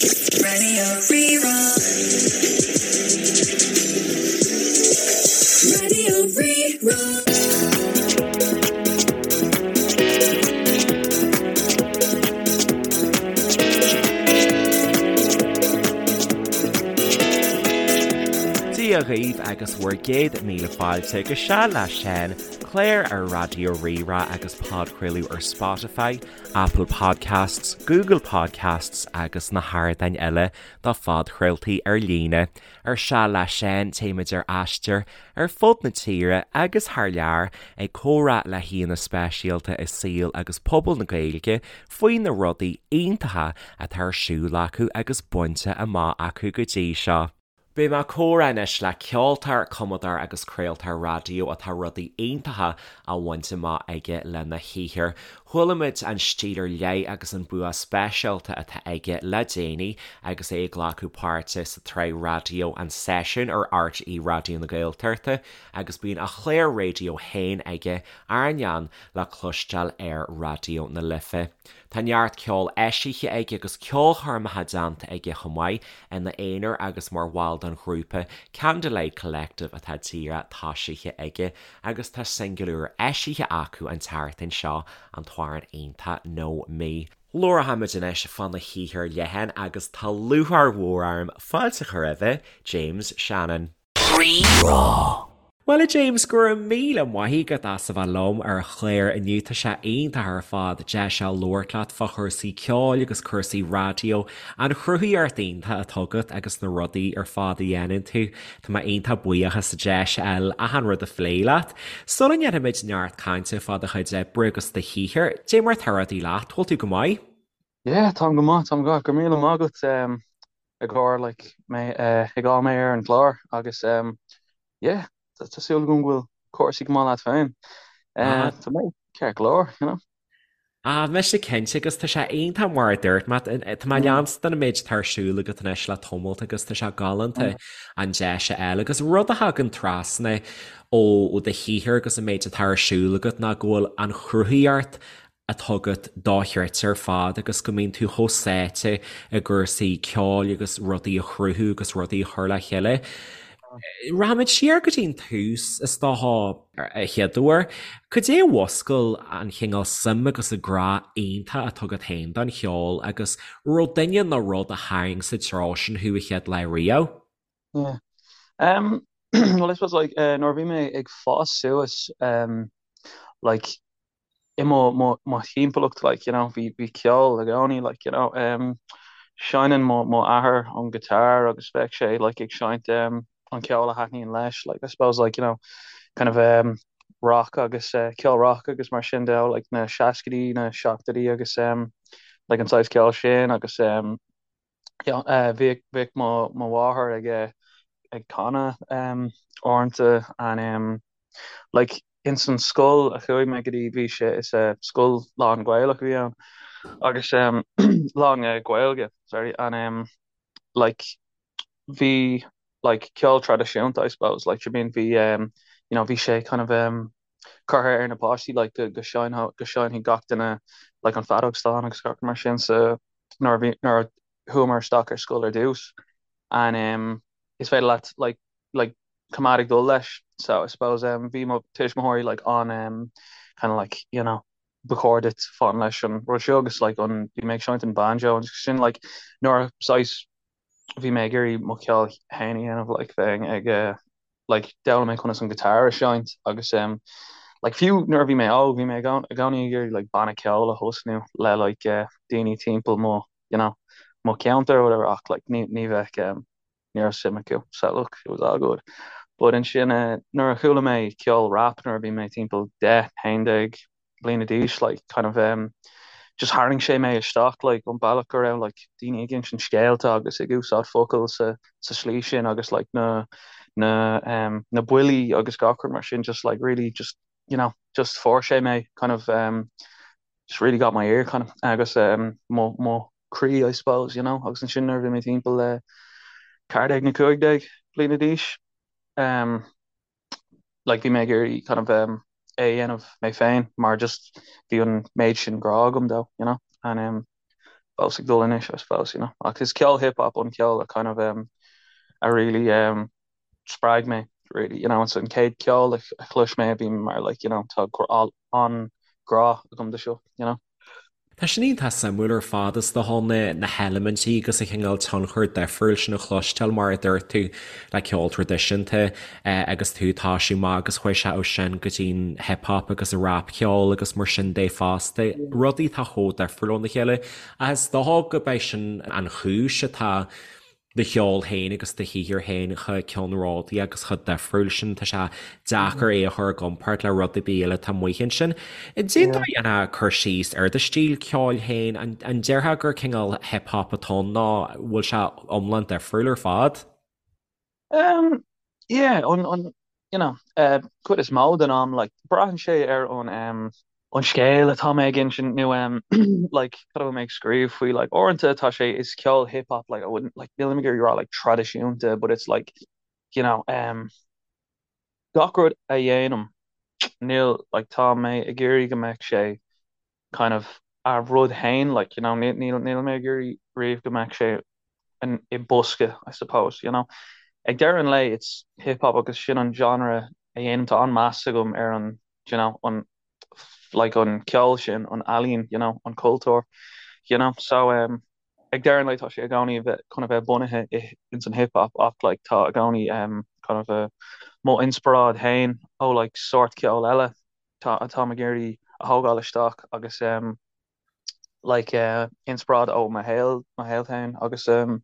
Radio Rí-Rá. Radio Rí-Rá. Dia dhaoibh agus bhur gcéad míle fáilte go Seal le Seán, clár ar Raidió Rí-Rá agus podchraoladh ar Spotify, Apple Podcasts, Google Podcasts agus na hardáin eile do phodchraoltaí ar líne. Ar Seal le Seán, téimid ar aistear ar fud na tíre agus thar lear ag comhrá le haíonna speisialta i saol agus pobal na Gaeilge faoi na rudaí iontacha atá ar siúl acu agus bainte amach acu go dtí seo. Beidh mé ag comhrá anois le ceoltóir, cumadóir agus craoltóir raidió atá rudaí iontacha á bhaint amach aige lena shaothar. Chuala muid an stíl ar leith agus an bua speisialta atá aige le déanaí agus é ag glacadh páirte sa tsraith raidió An Seisiún ar RTÉ Raidió na Gaeltachta agus bíonn a chlár raidió féin aige, Airneán, le cloisteáil ar Raidió na Life. Tá neart ceoil eisithe aige agus ceolchoirmeacha déanta aige chomh maith, ina aonar agus mar bhall den ghrúpa Candlelight Collective atá díreach tosaithe aige agus tá singil úr eisithe acu an tseachtain seo, an t-amhrán iontach 'No Me'. Labharfaimid anois fána shaothar leathan agus tá lúcháir mhór orm fáilte a chur roimhe, James Shannon. Rí-Rá. Bhuel a James, go raibh míle maith agat as a bheith liom ar an chlár inniu. Tá sé iontach ar fad deis a labhairt leat fá chúrsaí ceoil agus cúrsaí raidió, an chruthaíocht iontach atá agat agus na rudaí ar fad a dhéanann tú. Tá mé iontach buíoch as an deis a fháil achan rud a phlé leat. Sula ndéanfaimid neart cainte fá do chuid oibre agus do shaothar, dé mar atá rudaí leat, bhfuil tú go maith? Yeah, táim go maith, táim go maith. Go raibh míle maith agat ag cur like mé ag fháil mé ar an gclár agus yeah, tá súil agam go bhfuil cúrsaí go maith leat féin. Tá mé ceart go leor, you know. Ah, mise cinnte agus tá sé iontach mar a dúirt mé, tá mé ag leanstan an méid atá ar siúl agat anois le tamalt agus tá sé galánta an deis a fháil agus rud a thagann trasna ó do shaothar agus an méid atá ar siúl agat ná go bhfuil an chruthaíocht atá agat dochreidte ar fad agus go mbíonn tú chomh sáite i gcúrsaí ceoil agus rudaí a chruthú agus rudaí a chur le chéile. Rachaimid siar go dtí an tús, is dócha, a chéaduair. Cad é a mhúscail an chineál suim agus an grá iontach atá agat féin don cheol agus raibh duine nó rud a tharraing sa treo sin thú a chéad lá riamh? Yeah. Um, well, I suppose like, uh, nuair a bhí mé ag fás suas, um, like, i mo mo mo thimpeallacht like you know bhí bhí ceol i gcónaí like you know um seinneann mo mo athair an guitar agus bheadh sé like ag seinnt um an ceol a thaitníonn leis like I suppose like you know kind of um rock agus uh, ceol rock agus mar sin de like na seascaidí na seachtóidí agus um like an saghas ceol sin agus um yeah uh, bhíodh bhíodh mo mo mháthair ag uh, ag canadh um uaireanta and um like Ins an scoil a chuaigh mé go dtí bhí sé is scoil lán Gaelach a bhí ann agus lán Gaeilge sorry and um like bhí like ceol traidisiúnta I suppose like I mean bhí um you know bhí sé kind of um curtha ar na páistí like go go seinnfeadh go seinnfeadh gach duine like an feadóg stáin agus gach mar sin so nuair a bhí nuair a chuamar isteach ar scoil ar dtús and um is féidir leat like like coimeád ag dul leis so I suppose um bhí mo tuismitheoirí like an um kind of like you know ba chóir duit fán leis an rud seo agus like an bhí mé ag seinnt an banjo agus sin like nuair a saghas bhí mé ag iarraidh mo cheol féin a dhéanamh like bheinn ag uh, like d'fhoghlaim mé conas an guitar a seinnt agus um like fiú nuair a bhí mé óg bhí mé i gcónaí ag iarraidh like banna ceoil a thosnú le like uh, daoine timpeall mo you know mo cheantar or whatever ach like ní ní bheadh um, ní raibh suim acu so look it was all good. But ansin eh, nuair a chuala mé ceol rap nuair a bhí mé timpeall 10, 11 bliana d'aois like kind of um, just tharraing sé mé isteach like an bealach go raibh like daoine ag insint scéalta agus ag úsáid focail sa sa slí sin agus like na na um, na buillí agus gach rud mar sin just like really just you know just fuair sé mé kind of um, just really got my ear kind of agus um, mo mo croí I suppose you know agus ansin nuair a bhí mé timpeall le 14 nó 15 bliana d'aois um, like bhí mé ag iarraidh kind of um, é a dhéanamh mé féin mar just bhí an méid sin grá agam dó you know and um, fós ag dul anois I suppose, you know. Ach is ceol hip hop an ceol a kind of um, a really um, spreag mé really, you know, it's an chéad ceol a chlois mé a bhí mar like, you know, tá an-ghrá agam do seo, you know. Tá sin iontach suimiúil ar fad is dócha na na heilimintí agus an cineál tionchar difriúil sin a chloisteáil mar a dúirt tú le ceol traidisiúnta agus tú ag toisiú amach agus chuaigh sé ó sin go dtí an hip hop agus an rapcheol agus mar sin de fosta, rudaí atá chomh difriúil óna chéile. Ach is dócha go b'é sin an chúis atá do cheol féin agus do shaothar féin chomh ceannródaí agus chomh difriúil sin, tá sé deacair é a chur i gcomparáid le rud ar bith eile atá amuigh ansin. Cén dóigh a ndéanfá cur síos ar do stíl ceoil féin? An déarfá gur cineál hip hop atá ann nó bhfuil sé iomlán difriúil ar fad? Um, yeah, an, an, you know, uh, cuid is mó den am, like, braitheann sé ar an, um, an scéal atá mé ag insint nó, um, like, cad a bhfuil mé ag scríobh faoi, like, uaireanta tá sé, is ceol hip hop, like, I wouldn't, like, nílim ag iarraidh rá, like, traidisiúnta, but it's like, you know, um, gach rud a dhéanaim, níl, like, tá mé ag iarraidh go mbeadh sé kind of a rud féin, like, you know, níl, níl, níl mé ag iarraidh riamh go mbeadh sé in, i bosca, I suppose, you know. Ag deireadh an lae, it's hip hop agus sin an genre a dhéanaim, tá an-meas agam ar an, you know, an, like, an ceol sin, an ealaín, you know, an cultúr, you know, so, um, ag deireadh an lae tá sé i gcónaí a bheith, chun a bheith bunaithe i, ins an hip hop ach, like, tá i gcónaí, um, kind of a, mo inspioráid féin ó, like, sórt ceol eile. tá atáim ag iarraidh a thógáil isteach agus um like uh inspioráid ó mo shaol mo shaol féin agus um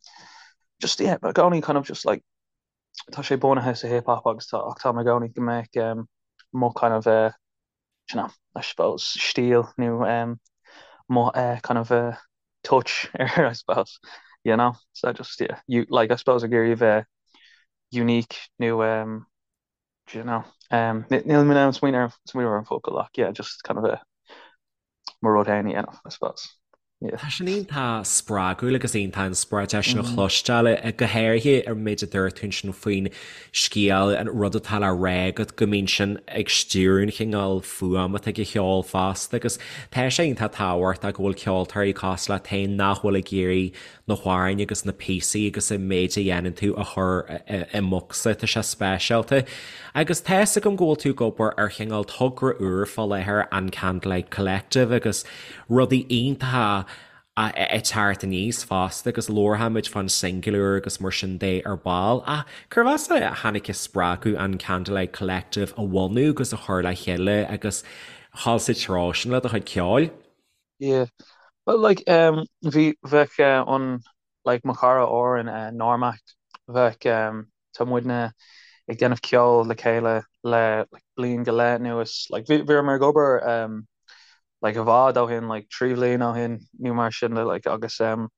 just yeah i gcónaí kind of just like tá sé bunaithe sa hip hop agus tá ach táim i gcónaí go mbeadh um mo kind of uh you know I suppose stíl nó um mo uh kind of uh touch air I suppose you know so just yeah you like I suppose ag iarraidh a bheith unique nó um Do you know? Um, níl mé in ann smaoineamh smaoineamh ar an focal ach yeah, just kind of a mo rud féin a dhéanamh, I suppose. Yeah. Tá sin iontach spreagúil agus iontach inspioráideach sin a chloisteáil, go háirithe ar méid a dúirt tú ansin faoin scéal, an rud atá le rá agat, go mbíonn sin ag stiúradh an chineál fuaim atá ag an cheol fosta agus tá sé iontach tábhachtach go bhfuil ceoltóirí cosúil leat féin nach bhfuil ag iarraidh na hamhráin agus na píosaí agus an méid a dhéanann tú a chur i mbocsa, tá sé speisialta. Agus tá fhios agam go bhfuil tú ag obair ar chineál togra úr fá láthair, an Candlelight Collective, agus rudaí iontacha ag teacht aníos fosta agus labharfaimid fán singil úr agus mar sin de ar ball. Ach cérbh as a tháinig an spreagadh an Candlelight Collective a bhunú agus a chur le chéile agus dhul sa treo sin le do chuid ceoil? Yeah. Well, like, um, bhí, bheadh uh, an, like, mo chara Oran, uh, Normac, bheadh, um, tá muidne ag déanamh ceol le chéile le, like, bliain go leith anuas. Like, bhí, bhíomar ag obair, um, like, i bhfad ó shin, like, 3 bhliain ó shin, nó mar sin de, like, agus, um,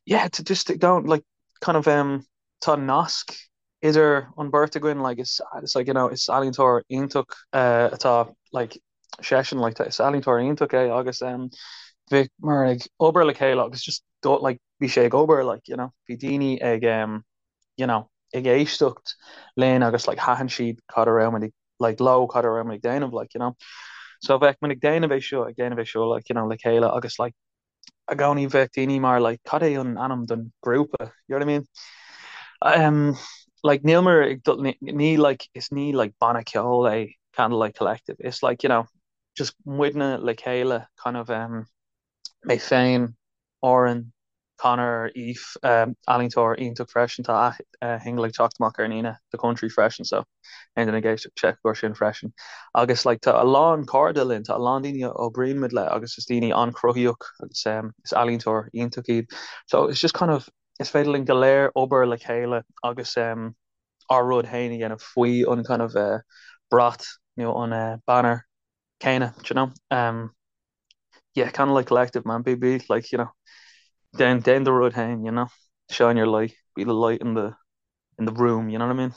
yeah, to just don't, like, kind of, um, tá nasc idir an bheirt againn, like, is, it's like, you know, is ealaíontóir iontach, uh, atá, like, seisean like is ealaíontóir iontach é agus um, bhíomar ag obair le chéile agus just do, like, bhí sé ag obair like, you know, bhí daoine ag um, you know, ag éisteacht linn agus like, thaitin siad cad a raibh muid ag like, leo cad a raibh muid ag déanamh like, you know. So bheadh muid ag déanamh é seo ag déanamh é seo like, you know, le chéile agus like, i gcónaí bheadh daoine mar like cad é an ainm don grúpa you know what I mean um like níl mar ag dul ní, ní like is ní like banna ceoil é Candlelight Collective it's like you know just muidne le chéile kind of um mé féin Oran Conor Aoife um ealaíontóir iontach freisin tá a shingil ag teacht amach ar an Aoine The Country freisin so aon duine ag éisteacht check air sin freisin. Agus like tá a lán cairde linn, tá a lán daoine a oibríonn muid le agus is daoine an-chruthaíoch agus um, is ealaíontóir iontach iad. So it's just kind of is féidir linn go léir obair le chéile agus um, ár rud féin a dhéanamh faoi an kind of uh, brat nó an uh, banner céanna, do you know? Um, yeah, Candlelight Collective, man, be be like, you know, déan déan do rud féin, you know, shine your light, be the light in the in the room, you know what I mean?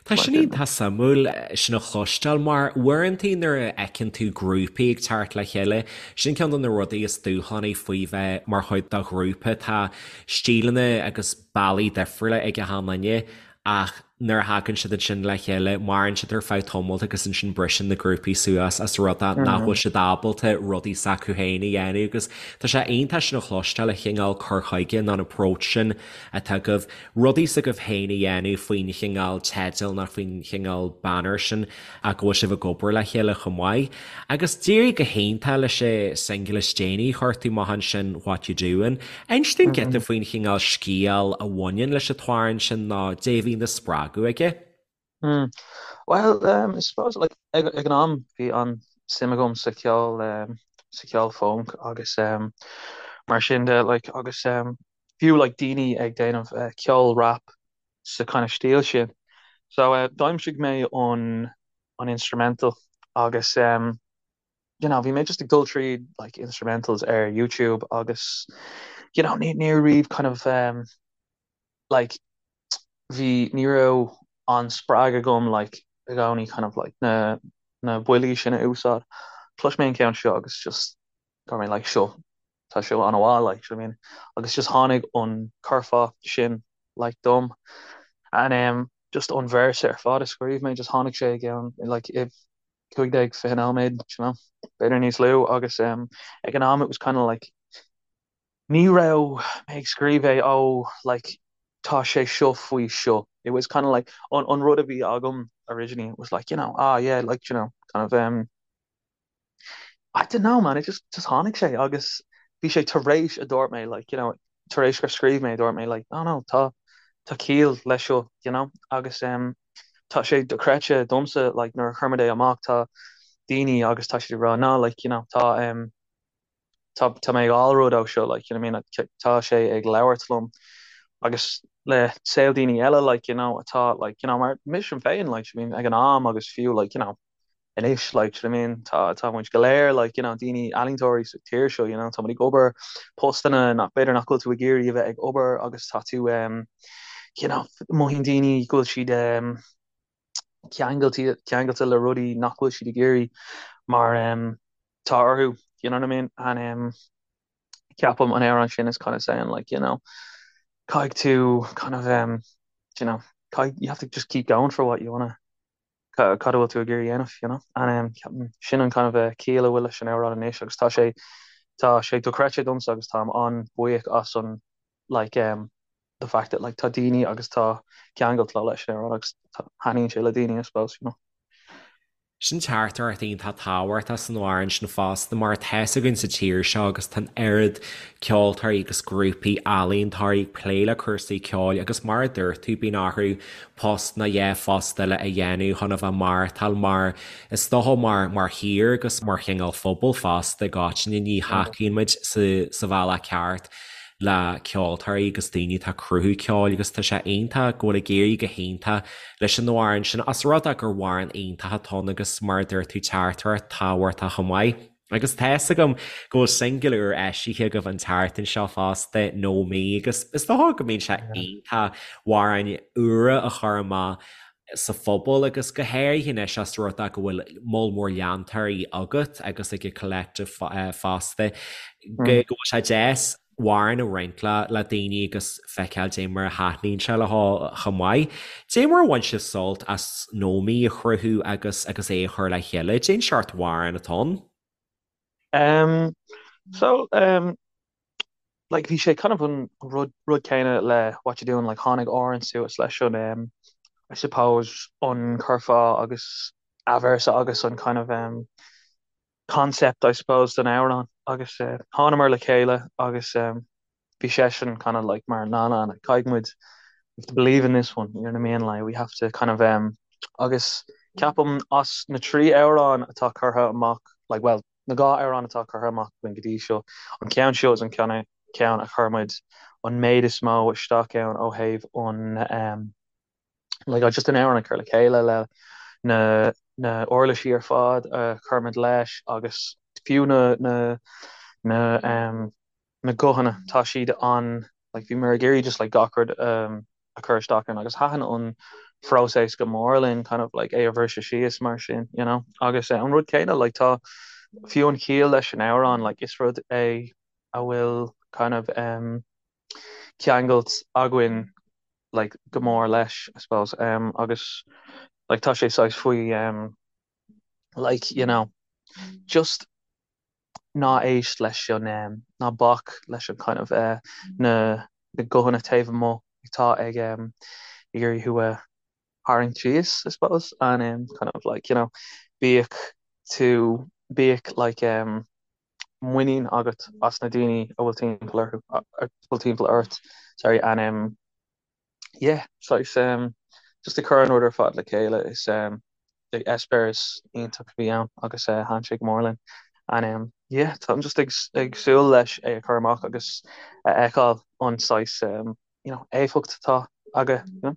Tá sin iontach suimiúil sin a chloisteáil mar uaireanta nuair a fheiceann tú grúpaí ag teacht le chéile, sin ceann de na rudaí is dúshlánaí faoi bheith mar chuid de ghrúpa, tá stíleanna agus bealaí difriúla ag achan duine ach. nuair a thagann siad ansin le chéile, maireann siad ar feadh tamaill agus ansin briseann na grúpaí suas as rud é nach bhfuil siad ábalta rudaí s'acu féin a dhéanamh agus tá sé iontach sin a chloisteáil, an chineál cur chuige nó an approach sin atá agaibh, rudaí s'agaibh féin a dhéanamh faoin chineál teidil nó faoin chineál banner sin ach go bhfuil sibh ag obair le chéile chomh maith. Agus d'éirigh go hiontach leis an singil is déanaí a chuir tú amach ansin, What You Doing. Inis dúinn giota faoin chineál scéal a bhaineann leis an t-amhrán sin nó dé a bhí ina spreagadh aige. Mm. Well, um, I suppose like, ag, ag an am bhí an-suim agam sa cheol um, sa cheol funk agus um, mar sin de like, agus um, fiú like, daoine ag déanamh uh, ceol rap sa kind of stíl sin. So uh, d'aimsigh mé an an instrumental agus um, you know, bhí mé just ag dul tríd like instrumentals ar YouTube agus you know, ní ní raibh kind of um, like bhí ní raibh an spreagadh agam like i gcónaí kind of like na na buillí sin a úsáid. Chlois mé an ceann seo agus just go raibh mé like seo tá seo an-mhaith like do you know what I mean agus just tháinig an curfá sin like dom and um, just an véarsa ar fad a scríobh mé just tháinig sé i gceann like i 15 20 nóiméad you know b'fhéidir níos lú agus um, ag an am it was kind of like ní raibh mé ag scríobh é oh like tá sé seo faoi seo it was kind of like an, an rud a bhí agam originally was like you know ah yeah like you know kind of um I don't know man it just just tháinig sé agus bhí sé tar éis a dúirt mé like you know tar éis gur scríobh mé dúirt mé like oh no tá tá ciall leis seo you know agus um, tá sé dochreidte domsa like nuair a chuir muid é amach tá daoine agus tá siad ag rá no like you know tá um, tá tá mé ag fháil rud ó seo like you know what I mean tá sé ag labhairt liom agus le saol daoine eile like you know atá like you know mar mise féin like I mean ag an am agus fiú like you know anois like do you know what I mean tá tá muid go léir like you know daoine ealaíontóirí sa tír seo you know tá muid ag obair postanna nach b'fhéidir nach bhfuil tú ag iarraidh a bheith ag obair agus tá tú um, you know mothaíonn daoine go bhfuil siad um, ceangailte ceangailte le rudaí nach bhfuil siad ag iarraidh mar um, tá orthu you know what I mean and um, ceapaim an amhrán sin is kind of saying like you know caithfidh tú kind of um, you know caithfidh, you have to just keep going for what you wanna cad a bhfuil tú ag iarraidh a dhéanamh, you know. And um, ceapaim sin an kind of uh, ciall a bhfuil leis an amhrán anois agus tá sé tá sé dochreidte domsa agus táim an-bhuíoch as an like um, the fact that like tá daoine agus tá ceangailt leis an amhrán agus taitníonn sé le daoine I suppose, you know. Sin teachtaireacht iontach tábhachtach san amhrán sin fosta mar tá fhios againn sa tír seo agus tá an oiread ceoltóirí agus grúpaí ealaíontóirí ag plé le cúrsaí ceoil agus mar a dúirt tú bíonn orthu post nó dhá phost eile a dhéanamh chun a bheith maireachtáil mar is dócha mar mar thír agus mar chineál phobal fosta i gcoitinne ní thacaíonn muid sa sa bhealach ceart le ceoltóirí agus daoine atá ag cruthú ceoil agus tá sé iontach go bhfuil ag éirí go hiontach leis an amhrán sin as rud é gur amhrán iontach atá ann agus mar a dúirt tú teachtaireacht tábhachtach chomh maith. Agus tá fhios agam go bhfuil singil úr eisithe agaibh an tseachtain seo fosta, No Me, agus is dócha go mbíonn sé iontach amhráin úra a chur amach sa phobal agus go háirithe anois as rud é go bhfuil moll mór leantóirí agat agus ag an Collective fosta, go bhfuil sé deas amhrán a roinnt le le daoine agus feiceáil dé mar a thaitníonn sé leo chomh maith. Dé mar a bhain sibh sult as No Me a chruthú agus agus é a chur le chéile? Cén seort amhráin atá ann? Um, so, um, like bhí sé kind of an rud rud céanna le What You Doing, like tháinig Oran suas leis an um, I suppose an curfá agus athvéarsa agus an kind of um, concept I suppose don amhrán agus uh, thánamar le chéile agus um, bhí seisean kind of like mar na na na caithfidh muid we have to believe in this one you know what I mean like we have to kind of um, agus ceapaim as na trí amhrán atá curtha amach like well na dhá amhrán atá curtha amach againn go dtí seo an ceann seo is an ceann ceann a chuir muid an méid is mó isteach ann ó thaobh an um, like just an amhrán a chur le chéile le na na uirlisí ar fad a chuir muid leis agus fiú na na na um, na guthanna tá siad an like bhí muid ag iarraidh just like gach rud um, a chur isteach ann agus thaitin an phróiseas go mór linn kind of like é a bhriseadh síos mar sin you know agus uh, an rud céanna like tá fiú an chiall leis an amhrán like is rud é a bhfuil kind of um, ceangailt againn. like go mór leis I suppose um agus like tá sé saghas faoi um like you know just ná éist leis an um ná bac leis an kind of eh na na guthanna taobh amuigh atá ag um ag iarraidh thú a tharraingt síos I suppose and um kind of like you know bíodh tú bíodh like um muinín agat as na daoine a bhfuil timpeall orthu a bhfuil timpeall ort sorry and um yeah saghas um just ag cur an rud ar fad le chéile is um like eispéireas iontach a bhí ann agus uh, thaitin sé go mór linn and um yeah táim just ag ag súil leis é a chur amach agus a fheiceáil an saghas um you know éifeacht atá aige you know.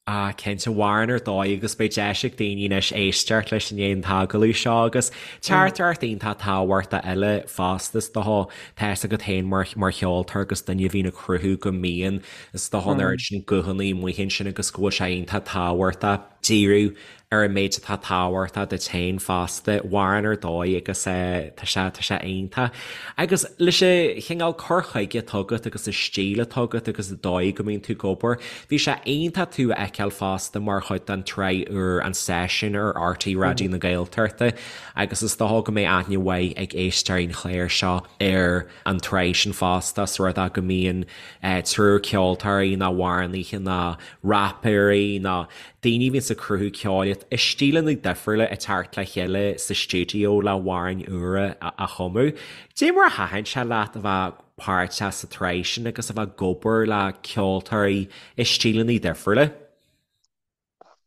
Ah, cinnte, amhrán ar dóigh agus beidh deis ag daoine anois éisteacht leis i ndiaidh an t-agallamh seo agus teachtaireacht iontach tábhachtach eile fosta is dócha, tá fhios agat féin mar mar cheoltóir agus duine a bhíonn ag cruthú go mbíonn is dócha an oiread sin guthanna amuigh ansin agus go bhfuil sé iontach tábhachtach díriú ar an méid atá tábhachtach duit féin fosta, amhrán ar dóigh agus tá sé, tá sé iontach. Agus leis an chineál cur chuige atá agat agus an stíl atá agat agus an dóigh go mbíonn tú ag obair, bhí sé iontach tú a fheiceáil fosta mar chuid den tsraith úr An Seisiún ar RTÉ Raidió na Gaeltachta agus is dócha go mbeidh aithne mhaith ag éisteoirí an chláir seo ar an tsraith sin fosta, os rud é go mbíonn triúr ceoltóirí nó amhránaithe nó rapaeirí nó daoine a bhíonns ag cruthú ceoil i stíleanna difriúla ag teacht le chéile sa stiúideo le hamhráin úra a chumadh. Cad é mar a thaitin sé leat a bheith páirteach sa tsraith sin agus a bheith ag obair le ceoltóirí i stíleanna difriúla?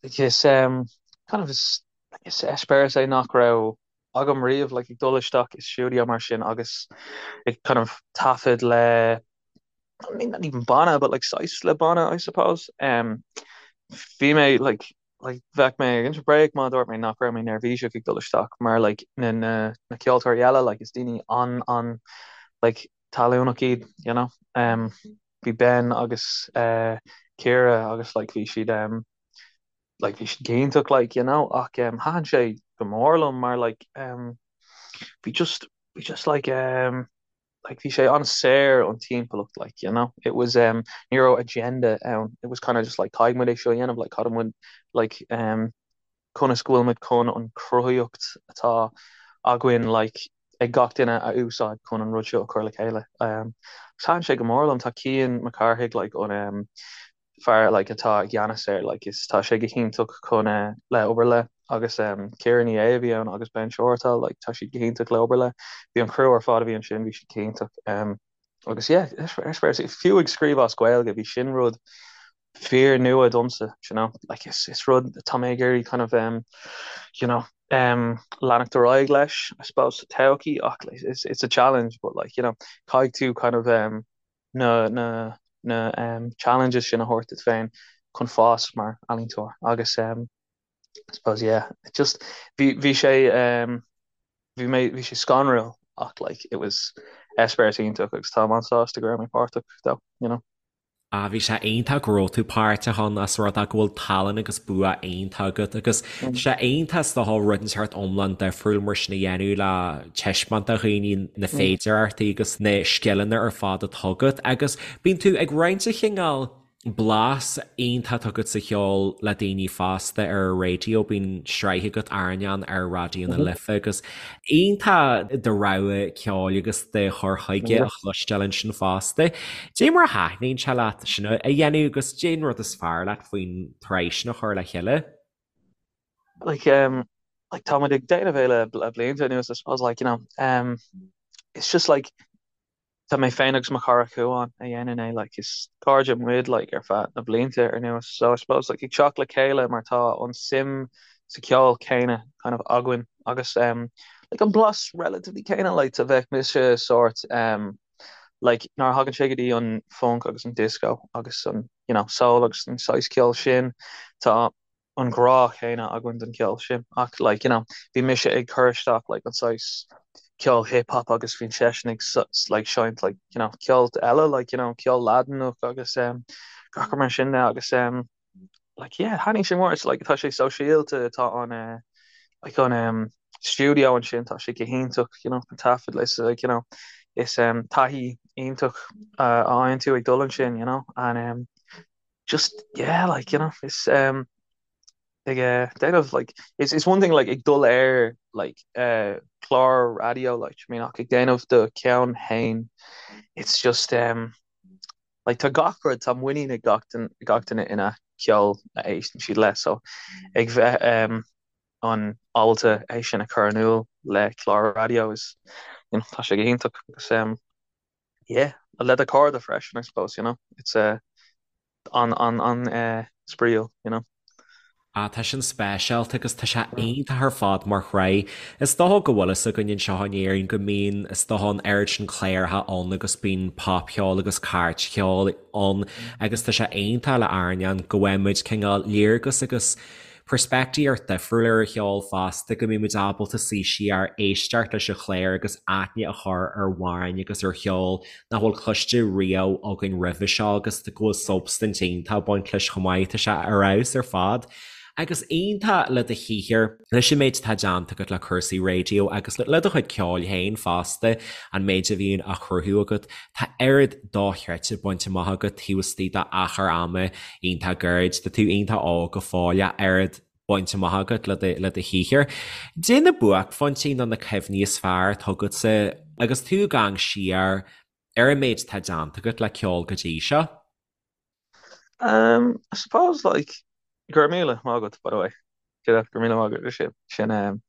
Is um, kind of is, is eispéireas é nach raibh agam riamh, like ag dul isteach i stiúideo mar sin agus ag kind of taifead le I mean, not even banna, but like saghas le banna, I suppose. Um, bhí mé like like bheadh mé ag inse bréag má dúirt mé nach raibh mé neirbhíseach ag dul isteach mar like na na na ceoltóirí eile like is daoine an an like talúnach iad, you know. Um, bhí Ben agus uh, Ciara agus like bhí siad um, like bhí siad go hiontach like you know ach um, thaitin sé go mór liom mar like um, bhí just bhí just like um, like bhí sé an-saor an timpeallacht like you know it was um ní raibh agenda ann it was kind of just like caithfidh muid é seo a dhéanamh like caithfidh muid like um conas go bhfuil muid chun an chruthaíocht atá againn like ag gach duine a úsáid chun an rud seo a chur le chéile um thaitin sé go mór liom tá Cian Mac Cárthaigh like an um fear like atá i gceannas air like is tá sé go hiontach chun eh le obair le agus um Ciara Ní É a bhí ann agus Ben Shortall like tá siad go hiontach le obair le bhí an criú ar fad a bhí ansin bhí siad go hiontach um agus yeah eispéireas fiú ag scríobh as Gaeilge bhí sin rud fíor nua domsa you know like is is rud tá mé ag iarraidh kind of um you know um leanacht ar aghaidh leis I suppose sa todhchaí ach like, it's it's a challenge but like you know caithfidh tú kind of um na na na um challenges sin a thabhairt duit féin chun fás mar ealaíontóir agus um I suppose yeah it just bhí bhí sé um bhí mé bhí sé scanrúil ach like it was eispéireas iontach agus táim an-sásta go raibh mé páirteach though you know. Ah bhí sé iontach go raibh tú páirteach ann os rud é go bhfuil tallann agus bua iontach agat agus tá sé iontach is dócha rud inteacht iomlán difriúil mar sin a dhéanamh le taispeáint do dhaoine na féidearthachtaí agus na scileanna ar fad atá agat agus bíonn tú ag roinnt an chineál blas iontach atá agat sa cheol le daoine fosta ar an raidió, bíonn sraith agat Airneán ar Raidió na Life agus iontach do rogha ceoil agus do chur chuige a chloisteáil ansin fosta. Cad é mar a thaitníonn sé leat sin a dhéanamh agus cad é an rud is fearr leat faoin tsraith sin a chur le chéile? Like um like tá muid ag déanamh é le le blianta anuas I suppose like you know um it's just like Tá mé féin agus mo chara Cuán a dhéanann é like is cairde muid like ar feadh na blianta anuas so I suppose like ag teacht le chéile mar tá an suim sa cheol céanna kind of againn agus um like an blas relatively céanna like tá bheadh mise sórt um like nuair a thagann sé go dtí an funk agus an disco agus an you know soul agus an saghas ceoil sin tá an grá chéanna againn don cheol sin ach like you know bhí mise ag cur isteach like an saghas ceol hip hop agus bhí seisean ag like seinnt like you know ceol eile like you know ceol Laidineach agus um gach rud mar sin de agus um like yeah thaitnigh sé mór it's like tá sé sóisialta tá an uh, like an um studio ansin tá sé go hiontach you know an taifead like like you know is um taithí iontach uh, a fhaigheann tú ag dul ansin you know and um. just yeah like you know is um ag uh, déanamh like it's it's one thing like ag dul ar like uh clár raidió like I mean ach ag déanamh do cheann féin it's just um like tá gach rud tá muinín ag gach duine gach duine ina ceol a éisteann siad leis so ag bheith um an ábalta é sin a chur in iúl le clár raidió is you know tá sé go hiontach agus um yeah le do chairde freisin I suppose you know it's uh an an an eh spraíúil you know. Ah tá sin speisialta agus tá sé iontach ar fad mar shraith. Is dócha go bhfuil fhios againn anseo in Éirinn go mbíonn is dócha an oiread sin cláracha ann agus bíonn popcheol agus cairtcheol ann agus tá sé iontach le airneán go bhfaighidh muid cineál léargas agus peirspictíocht difriúil ar an cheol fosta, go mbíonn muid ábalta suí siar, éisteacht leis an chlár agus aithne a chur ar amhráin agus ar cheol nach bhfuil cloiste riamh againn roimhe seo agus go bhfuil substaint iontach ag baint leis chomh maith. Tá sé ar fheabhas ar fad. Agus iontach le do shaothar, leis an méid atá déanta agat le cúrsaí raidió agus le do chuid ceoil féin fosta, an méid a bhíonn á chruthú agat, tá oiread dochreidte bainte amach agat taobh istigh d'achar ama iontach gairid. Tá tú iontach óg go fóill ach oiread bainte amach agat le do le do shaothar. Cad é na buaicphointí nó na cuimhní is fearr atá agatsa agus tú ag amharc siar ar an méid atá déanta agat le ceol go dtí seo? Um, I suppose like go raibh míle maith agat by the way. Go raibh míle maith agat sin sin um,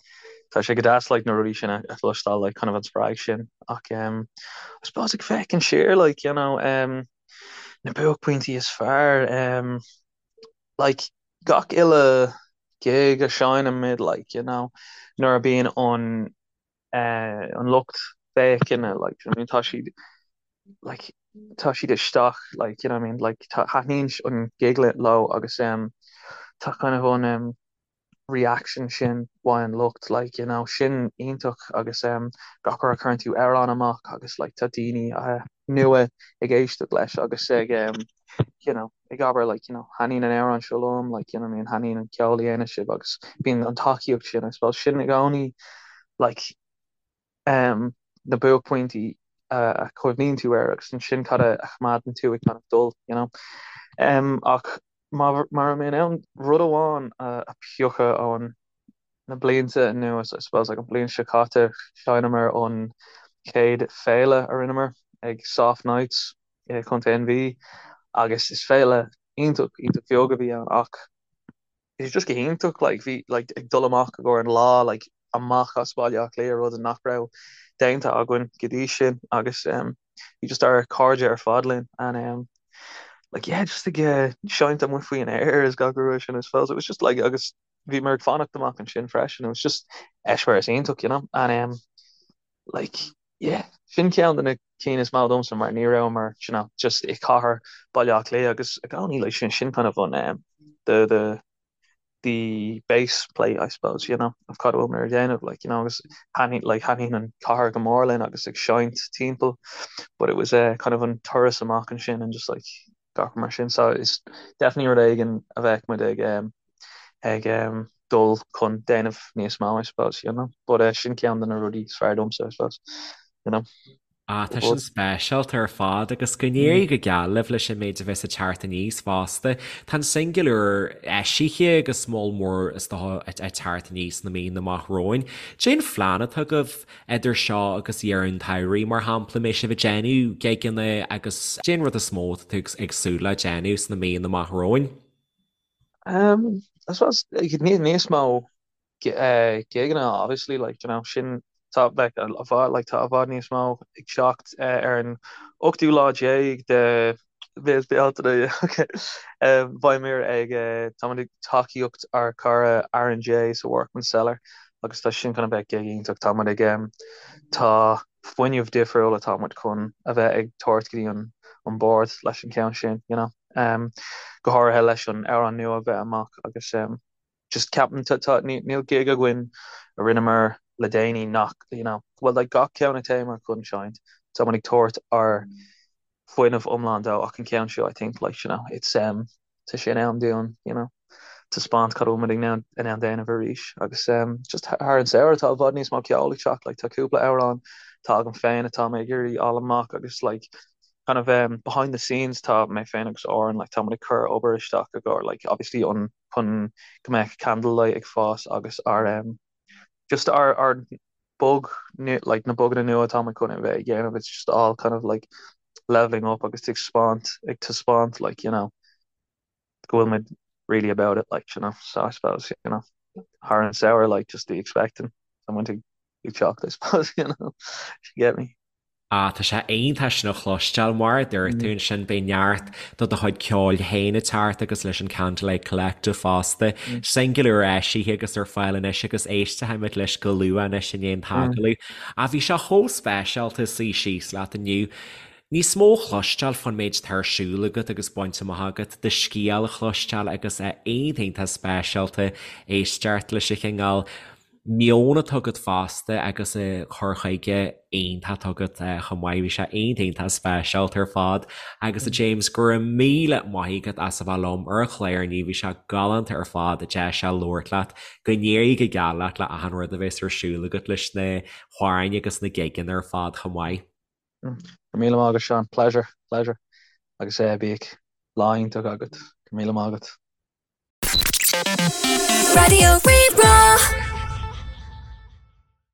tá sé go deas like na rudaí sin a chloisteáil like kind of an spreag sin ach um, I suppose ag féachaint siar like you know um, na buaicphointí is fearr um, like gach uile gig a seinnimid like you know nuair a bíonn an uh, an lucht féachana like you know, I mean, tá siad like tá siad isteach like you know what I mean like tá thaitníonn an gig leo agus um, tá kind of an um, reaction sin uaidh an lucht like you know sin iontach agus um gach uair a chuireann tú amhrán amach agus like tá daoine uh, nua ag éisteacht leis agus ag um, you know ag abair like you know thaitníonn an amhrán seo liom like you know I mean thaitníonn an ceol a dhéanann sibh agus bíonn an tacaíocht sin I suppose sin i gcónaí like um na buaicphointí a chuimhníonn tú air agus ansin cad a choimeádann tú ag kind of dul you know um ach má raibh mé in ann rud amháin a phiocadh ón na blianta anuas I suppose like an bhliain seo caite sheinneamar an chéad féile a rinneamar ag Soft Nights i Contae an Mhí agus is féile iontach iontach bheag a bhí ann ach bhí sé just go hiontach like bhí like ag dul amach i gcomhair an lá like amach as Baile Átha Cliath rud nach raibh déanta againn go dtí sin agus um, bhí just ár cairde ar fad linn and um, like yeah just ag uh, seinnt amuigh faoin aer is gach rud sin I suppose it was just like agus bhíomar ag fanacht amach ansin freisin it was just eispéireas iontach you know and um, like yeah sin ceann de na cinn is mó domsa mar ní rabhamar you know just i cathair Baile Átha Cliath agus i gcónaí like sin sin kind of an um, the the the base plate I suppose you know of cad a bhfuil muid ag déanamh like you know agus thaitníonn like thaitníonn an cathair go mór linn agus ag seinnt timpeall but it was uh, kind of an turas amach ansin and just like gach mar sin so is definitely rud éigin a bheadh muid ag um, ag um, dul chun déanamh níos mó I suppose you know but uh, sin ceann de na rudaí is fearr domsa I suppose you know. Ah, tá sin speisialta ar fad agus go n-éirí go geal libh leis an méid a bheas ag teacht aníos fosta. Tá an singil úr eisithe agus moll mór is dócha ag teacht aníos sna míonna amach romhainn. Cén phlean atá agaibh idir seo agus deireadh an tsamhraidh, mar shampla, mbeidh sibh ag déanamh gigeanna agus cén rud is mó atá tú ag súil le déanamh sna míonna amach romhainn? Um, I suppose níos mó gigeanna obviously like you know sin tá like i bhfad like tá i bhfad níos mó ag teacht ar an ochtú lá déag de mhí Bealtaine okay beimid ag táimid ag tacaíocht ár cara Aaron J sa Workman's Cellar agus tá sin chun a bheith gig iontach táimid ag tá fuinneamh difriúil atá muid chun a bheith ag tabhairt go dtí an an bord leis an ceann sin you know go háirithe leis an amhrán nua a bheith amach agus just ceapaim tá tá níl gig againn a rinneamar le déanaí nach you know well like gach ceann a théamar chun seinnt tá muid ag tabhairt ár fuinneamh iomlán dó ach an ceann seo I think like you know it's um tá sé in am dúinn you know taispeáint cad a bhfuil muid in ann in ann déanamh arís agus um just thar an samhradh tá i bhfad níos mó ceol ag teacht like tá cúpla amhrán tá agam féin atá mé ag iarraidh fháil amach agus like. kind of um, behind the scenes tá mé féin agus Oran like tá muid ag cur obair isteach i gcomhair like obviously an chun go mbeadh Candlelight ag fás agus ár um, just ár ár bog like na boganna nua atá muid chun a bheith ag déanamh it's just all kind of like leveling up agus ag spáint ag taispeáint like you know go bhfuil muid really about it like you know so I suppose you know thar an samhradh like just be expecting someone to be shocked I suppose you know if you get me. Ah, tá sé iontach sin a chloisteáil, mar a dúirt tú ansin, beidh neart do do chuid ceoil féin ag teacht agus leis an Candlelight Collective fosta. Singil úr eisithe agus ar fáil anois agus éistfimid leis go luath anois i ndiaidh an t-agallamh. Ach bhí sé chomh speisialta suí síos leat inniu. Níos mó a chloisteáil fán méid atá ar siúl agat agus bainte amach agat, do scéal a chloisteáil agus é iontach iontach speisialta éisteacht leis an chineál meon atá agat fosta agus an cur chuige iontach atá agat chomh maith. Bhí sé iontach iontach speisialta ar fad agus a James go raibh míle maith agat as a bheith liom ar an chlár inniu, bhí sé galánta ar fad deis a labhairt leat, go n-éirí go geal leat le achan rud a bheas ar siúl agat leis na hamhráin agus na gigeanna ar fad chomh maith. Go raibh míle maith agat Seán, pleasure, pleasure. Agus eh bíodh lá iontach agat. Go raibh míle maith agat. Raidió Rí-Rá.